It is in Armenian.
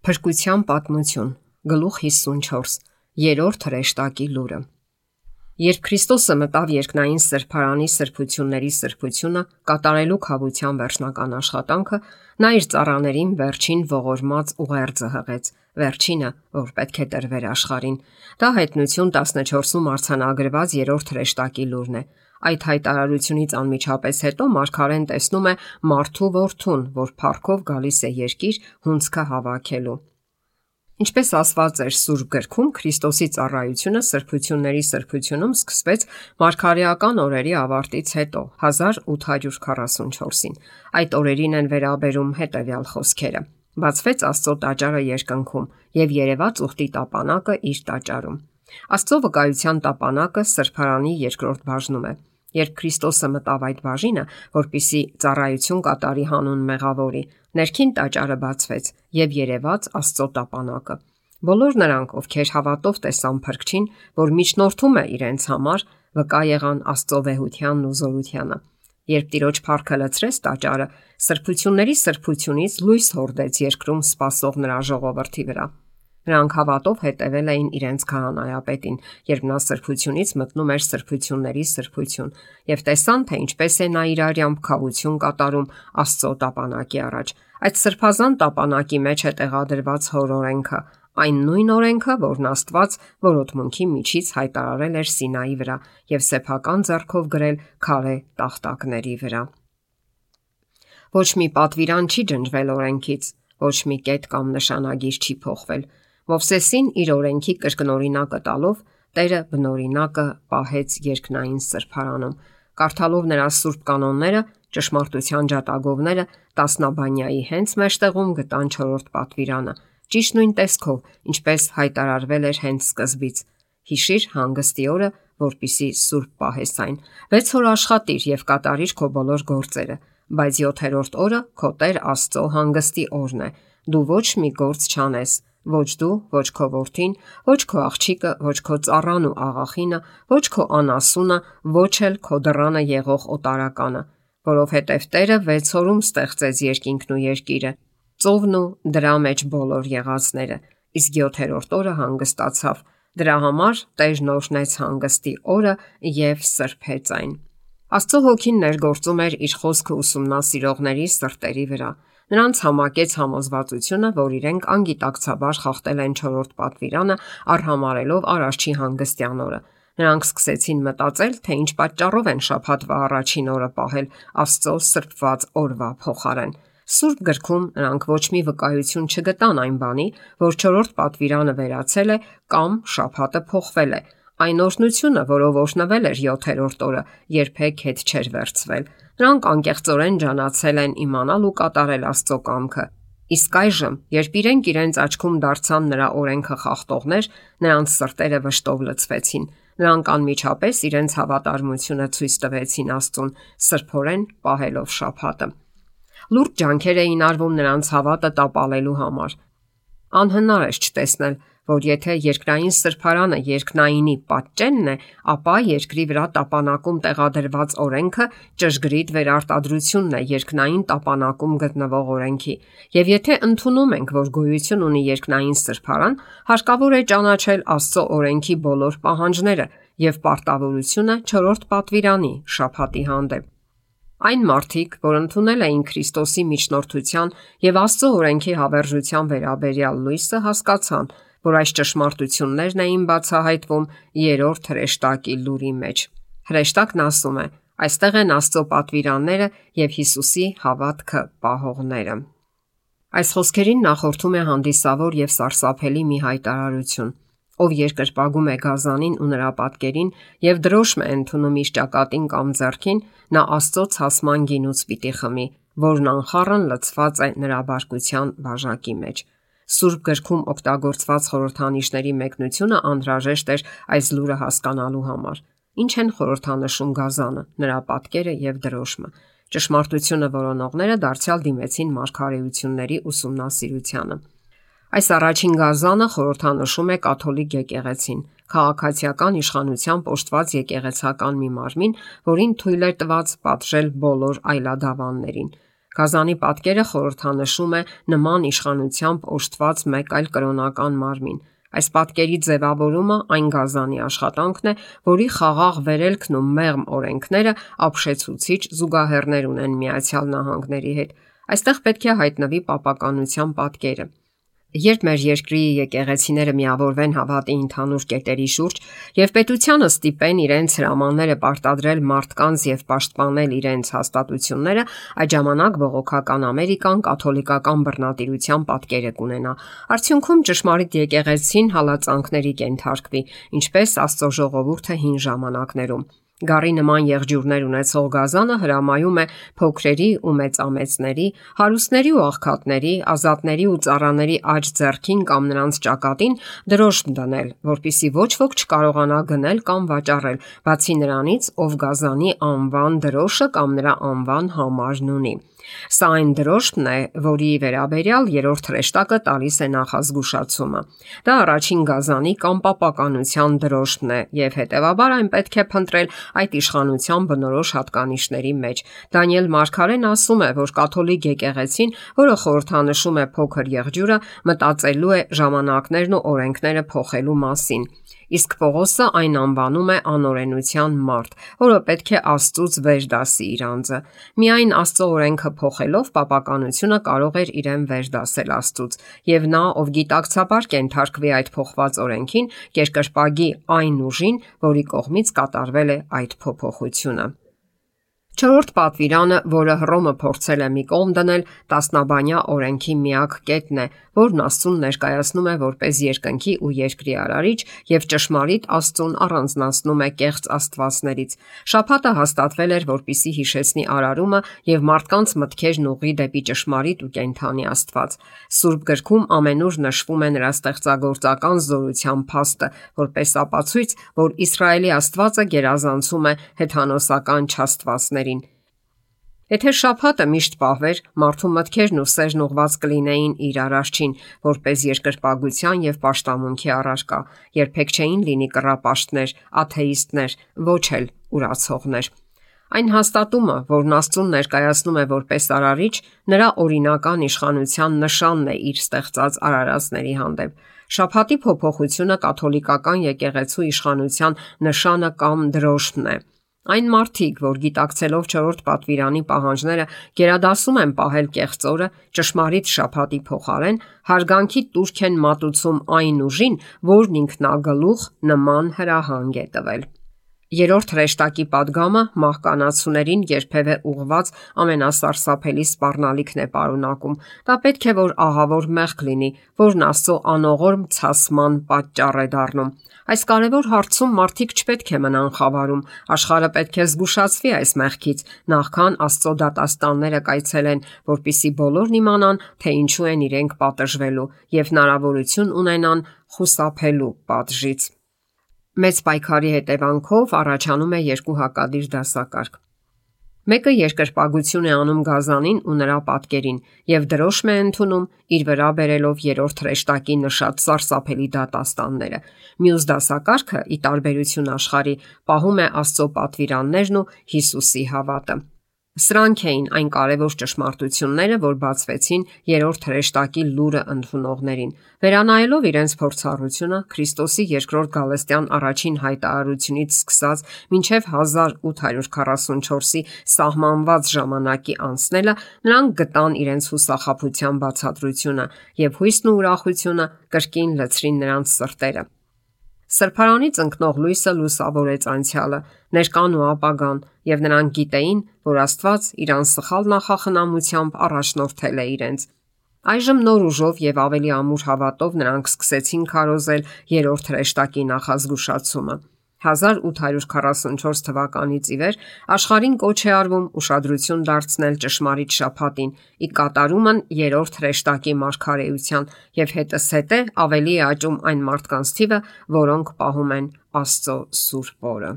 Փրկության պատմություն, գլուխ 54, երրորդ հրեշտակի լուրը։ Երբ Քրիստոսը մտավ երկնային սրբարանի սրբությունների սրբությունը, կատարելու քավության վերջնական աշխատանքը, նա իր ծառաներին վերջին ողորմած ուղերձը հղեց, վերջինը, որ պետք է տրվեր աշխարհին։ Դա Հայտնություն 14-ում արձանագրված երրորդ հրեշտակի լուրն է։ Այդ հայտարարությունից անմիջապես հետո մարգարեն տեսնում է մարդու որդուն, որ փառքով գալիս է երկիր հունձքը հավաքելու։ Ինչպես ասված էր Սուրբ Գրքում, Քրիստոսի ծառայությունը սրբությունների սրբությունում սկսվեց մարգարեական օրերի ավարտից հետո 1844-ին։ Այդ օրերին են վերաբերում հետևյալ խոսքերը. բացվեց Աստծո տաճարը երկնքում եւ երևաց ուխտի տապանակը իր տաճարում։ Աստծո վկայության տապանակը սրբարանի երկրորդ բաժնում է։ Երբ Քրիստոսը մտավ այդ բաժինը, որպիսի ծառայություն կատարի հանուն մեղավորի, ներքին տաճարը բացվեց եւ երևաց Աստծո տապանակը։ Բոլոր նրանք, ովքեր հավատով տեսան Փրկչին, որ միջնորդում է իրենց համար, վկա եղան Աստծո վեհությանն ու զորությանը։ Երբ Տիրոջ փառքը լցրեց տաճարը, սրբությունների սրբությունից լույս հորդեց երկրում սպասող նրա ժողովրդի վրա։ Նրանք հավատով հետևել էին իրենց քահանայապետին, երբ նա սրբությունից մտնում էր սրբությունների սրբություն, եւ տեսան, թե ինչպես է նա իր արյամբ քավություն կատարում Աստծո տապանակի առաջ։ Այդ սրբազան տապանակի մեջ է տեղադրված Հոր օրենքը, այն նույն օրենքը, որն Աստված որոտմունքի միջից հայտարարել էր Սինայի վրա եւ սեփական ձեռքով գրել քարե տախտակների վրա։ Ոչ մի պատվիրան չի ջնջվել օրենքից, ոչ մի կետ կամ նշանագիր չի փոխվել։ Մովսեսին իր օրենքի կրկնօրինակը տալով Տերը բնօրինակը պահեց երկնային սրբարանում։ Կարդալով նրա սուրբ կանոնները, ճշմարտության ջատագովները տասնաբանյայի հենց մեջտեղում գտան 4-րդ պատվիրանը, ճիշտ նույն տեսքով, ինչպես հայտարարվել էր հենց սկզբից. հիշիր հանգստի օրը, որպիսի սուրբ պահես այն։ 6 օր աշխատիր եւ կատարիր քո բոլոր գործերը, բայց 7-րդ օրը քո Տեր Աստծո հանգստի օրն է։ Դու ոչ մի գործ չանես, ոչ դու, ոչ քո որդին, ոչ քո աղջիկը, ոչ քո ծառան ու աղախինը, ոչ քո անասունը, ոչ էլ քո դռանը եղող օտարականը, որովհետև Տերը 6 օրում ստեղծեց երկինքն ու երկիրը, ծովն ու դրա մեջ բոլոր եղածները, իսկ 7-րդ օրը հանգստացավ։ Դրա համար Տերն օրհնեց հանգստի օրը եւ սրբեց այն։ Աստծո հոգին ներգործում էր իր խոսքը ուսումնասիրողների սրտերի վրա։ Նրանց համակեց համոզվածությունը, որ իրենք անգիտակցաբար խախտել են 4-րդ պատվիրանը, արհամարելով Արարչի հանգստյան օրը։ Նրանք սկսեցին մտածել, թե ինչ պատճառով են շաբաթվա առաջին օրը պահել Աստծո սրբված օրվա փոխարեն։ Սուրբ Գրքում նրանք ոչ մի վկայություն չգտան այն բանի, որ 4-րդ պատվիրանը վերացել է կամ շաբաթը փոխվել է։ Այն օրհնությունը, որով օրհնվել էր 7-րդ օրը, երբեք հետ չէր վերցվել։ Նրանք անկեղծորեն ջանացել են իմանալ ու կատարել Աստծո կամքը։ Իսկ այժմ, երբ իրենց աչքում դարձան նրա օրենքը խախտողներ, նրանց սրտերը վշտով լցվեցին։ Նրանք անմիջապես իրենց հավատարմությունը ցույց տվեցին Աստծուն, սրբորեն պահելով շաբաթը։ Լուրջ ջանքեր էին արվում նրանց հավատը տապալելու համար։ Անհնար է չտեսնել, որ եթե երկնային սրբարանը երկնայինի պատճենն է, ապա երկրի վրա տապանակում տեղադրված օրենքը ճշգրիտ վերարտադրությունն է երկնային տապանակում գտնվող օրենքի։ Եվ եթե ընդունում ենք, որ գոյություն ունի երկնային սրբարան, հարկավոր է ճանաչել Աստծո օրենքի բոլոր պահանջները եւ պարտավորությունը 4-րդ պատվիրանի շաբաթի հանդեպ։ Այն մարդիկ, որ ընդունել էին Քրիստոսի միջնորդության եւ Աստծո օրենքի հավերժության վերաբերյալ լույսը, հասկացան, որ այս ճշմարտություններն էին բացահայտվում երրորդ հրեշտակի լուրի մեջ։ Հրեշտակն ասում է. այստեղ են Աստծո պատվիրանները եւ Հիսուսի հավատքը պահողները։ Այս խոսքերին նախորդում է հանդիսավոր եւ սարսափելի մի հայտարարություն։ Ով երկրպագում է գազանին ու նրա պատկերին եւ դրոշմ է ընդունում իր ճակատին կամ ձեռքին, նա Աստծո ցասման գինուց պիտի խմի, որն անխառն լցված է նրա բարկության բաժակի մեջ։ Սուրբ Գրքում օգտագործված խորհրդանիշների մեկնությունը անհրաժեշտ էր այս լուրը հասկանալու համար։ Ինչ են խորհրդանշում գազանը, նրա պատկերը եւ դրոշմը։ Ճշմարտությունը որոնողները դարձյալ դիմեցին մարգարեությունների ուսումնասիրությանը։ Այս առաջին գազանը խորհրդանշում է կաթոլիկ եկեղեցին, քաղաքացիական իշխանությամբ օժտված եկեղեցական մի մարմին, որին թույլ էր տված պատժել բոլոր այլադավաններին։ Գազանի պատկերը խորհրդանշում է նման իշխանությամբ օժտված մեկ այլ կրոնական մարմին։ Այս պատկերի ձևավորումը այն գազանի աշխատանքն է, որի խաղաղ վերելքն ու մեղմ օրենքները ապշեցուցիչ զուգահեռներ ունեն Միացյալ Նահանգների հետ։ Այստեղ պետք է հայտնվի պապականության պատկերը։ Երբ մեր երկրի եկեղեցիները միավորվեն հավատի ընդհանուր կետերի շուրջ եւ պետությանը ստիպեն իրենց հրամանները պարտադրել մարդկանց եւ պաշտպանել իրենց հաստատությունները, այդ ժամանակ բողոքական Ամերիկան կաթոլիկական բռնատիրության պատկերը կունենա։ Արդյունքում ճշմարիտ եկեղեցին հալածանքների կենթարկվի, ինչպես Աստծո ժողովուրդը հին ժամանակներում։ Գառի նման եղջյուրներ ունեցող գազանը հրամայում է փոքրերի ու մեծամեծների, հարուստների ու աղքատների, ազատների ու ծառաների աջ ձեռքին կամ նրանց ճակատին դրոշմ դնել, որpիսի ոչ ոք չկարողանա գնել կամ վաճառել, բացի նրանից, ով գազանի անվան դրոշը կամ նրա անվան համարն ունի։ Սա այն դրոշմն է, որի վերաբերյալ երրորդ հրեշտակը տալիս է նախազգուշացումը։ Դա առաջին գազանի կամ պապականության դրոշմն է եւ հետեւաբար այն պետք է փնտրել այդ իշխանության բնորոշ հատկանիշների մեջ։ Դանիել Մարգարեն ասում է, որ կաթոլիկ եկեղեցին, որը խորհրդանշում է փոքր եղջյուրը, մտածելու է ժամանակներն ու օրենքները փոխելու մասին։ Իսկ Պողոսը այն անվանում է անօրենության մարդ, որը պետք է Աստծուց վեր դասի իր անձը։ Միայն Աստծո օրենքը փոխելով պապականությունը կարող էր իրեն վեր դասել Աստծուց, եւ նա, ով գիտակցաբար կենթարկվի այդ փոխված օրենքին, կերկրպագի այն ուժին, որի կողմից կատարվել է այդ փոփոխությունը։ Չորրորդ պատվիրանը, որը Հռոմը փորձել է մի կողմ դնել, տասնաբանյա օրենքի միակ կետն է, որն Աստծուն ներկայացնում է որպես երկնքի ու երկրի արարիչ եւ ճշմարիտ Աստծուն առանձնացնում է կեղծ աստվածներից։ Շաբաթը հաստատվել էր, որպիսի հիշեցնի արարումը եւ մարդկանց մտքերն ուղղի դեպի ճշմարիտ ու կենթանի Աստված։ Սուրբ գրքում ամենուր նշվում է նրա ստեղծագործական զորության փաստը, որպես ապացույց, որ Իսրայելի Աստվածը գերազանցում է հեթանոսական չաստվածներին։ Եթե շաբաթը միշտ պահվեր, մարդու մտքերն ու սերն ուղված կլինեին իր արարչին, որպես երկրպագության եւ պաշտամունքի առարկա, երբեք չէին լինի կռապաշտներ, աթեիստներ, ոչ էլ ուրացողներ։ Այն հաստատումը, որն Աստծուն ներկայացնում է որպես արարիչ, նրա օրինական իշխանության նշանն է իր ստեղծած արարածների հանդեպ։ Շաբաթի փոփոխությունը կաթոլիկական եկեղեցու իշխանության նշանը կամ դրոշմն է։ Այն մարդիկ, որ գիտակցելով չորրորդ պատվիրանի պահանջները գերադասում են պահել կեղծ օրը, ճշմարիտ շաբաթի փոխարեն հարգանքի տուրք են մատուցում այն ուժին, որն ինքնագլուխ նման հրահանգ է տվել։ Երրորդ հրեշտակի падգամը մահկանացուներին երբևէ ուղված ամենասարսափելի սպառնալիքն է պարունակում։ Դա պետք է որ ահավոր մեղք լինի, որն Աստծո անողորմ ցասման պատճառ է դառնում։ Այս կարևոր հարցում մարդիկ չպետք է մնան խավարում, աշխարհը պետք է զգուշացվի այս մեղքից, նախքան Աստծո դատաստանները կայցելեն, որpիսի բոլորն իմանան, թե ինչու են իրենք պատժվելու եւ հնարավորություն ունենան խուսափելու պատժից։ Մեծ պայքարի հետևանքով առաջանում է երկու հակադիր դասակարգ։ Մեկը երկրպագություն է անում գազանին ու նրա պատկերին եւ դրոշմ է ընդունում իր վրա բերելով երրորդ հրեշտակի նշած սարսափելի դատաստանները։ Մյուս դասակարգը, ի տարբերություն աշխարհի, պահում է Աստծո պատվիրաններն ու Հիսուսի հավատը։ Սրանք էին այն կարևոր ճշմարտությունները, որ բացվեցին երրորդ հրեշտակի լուրը ընդունողներին։ Վերանայելով իրենց փորձառությունը Քրիստոսի երկրորդ գալստյան առաջին հայտարարությունից սկսած մինչև 1844-ի սահմանված ժամանակի անցնելը, նրանք գտան իրենց հուսախաբության բացատրությունը եւ հույսն ու ուրախությունը կրկին լցրին նրանց սրտերը։ Սրբարանից ընկնող լույսը լուսավորեց անցյալը, ներկան ու ապագան, եւ նրանք գիտեին, որ Աստված իր անսխալ նախախնամությամբ առաջնորդել է իրենց։ Այժմ նոր ուժով եւ ավելի ամուր հավատով նրանք սկսեցին քարոզել երրորդ հրեշտակի նախազգուշացումը։ 1844 թվականից ի վեր աշխարհին կոչ է արվում ուշադրություն դարձնել ճշմարիտ շաբաթին՝ ի կատարումն երրորդ հրեշտակի մարգարեության եւ հետզհետե ավելի է աճում այն մարդկանց թիվը, որոնք պահում են Աստծո սուրբ օրը։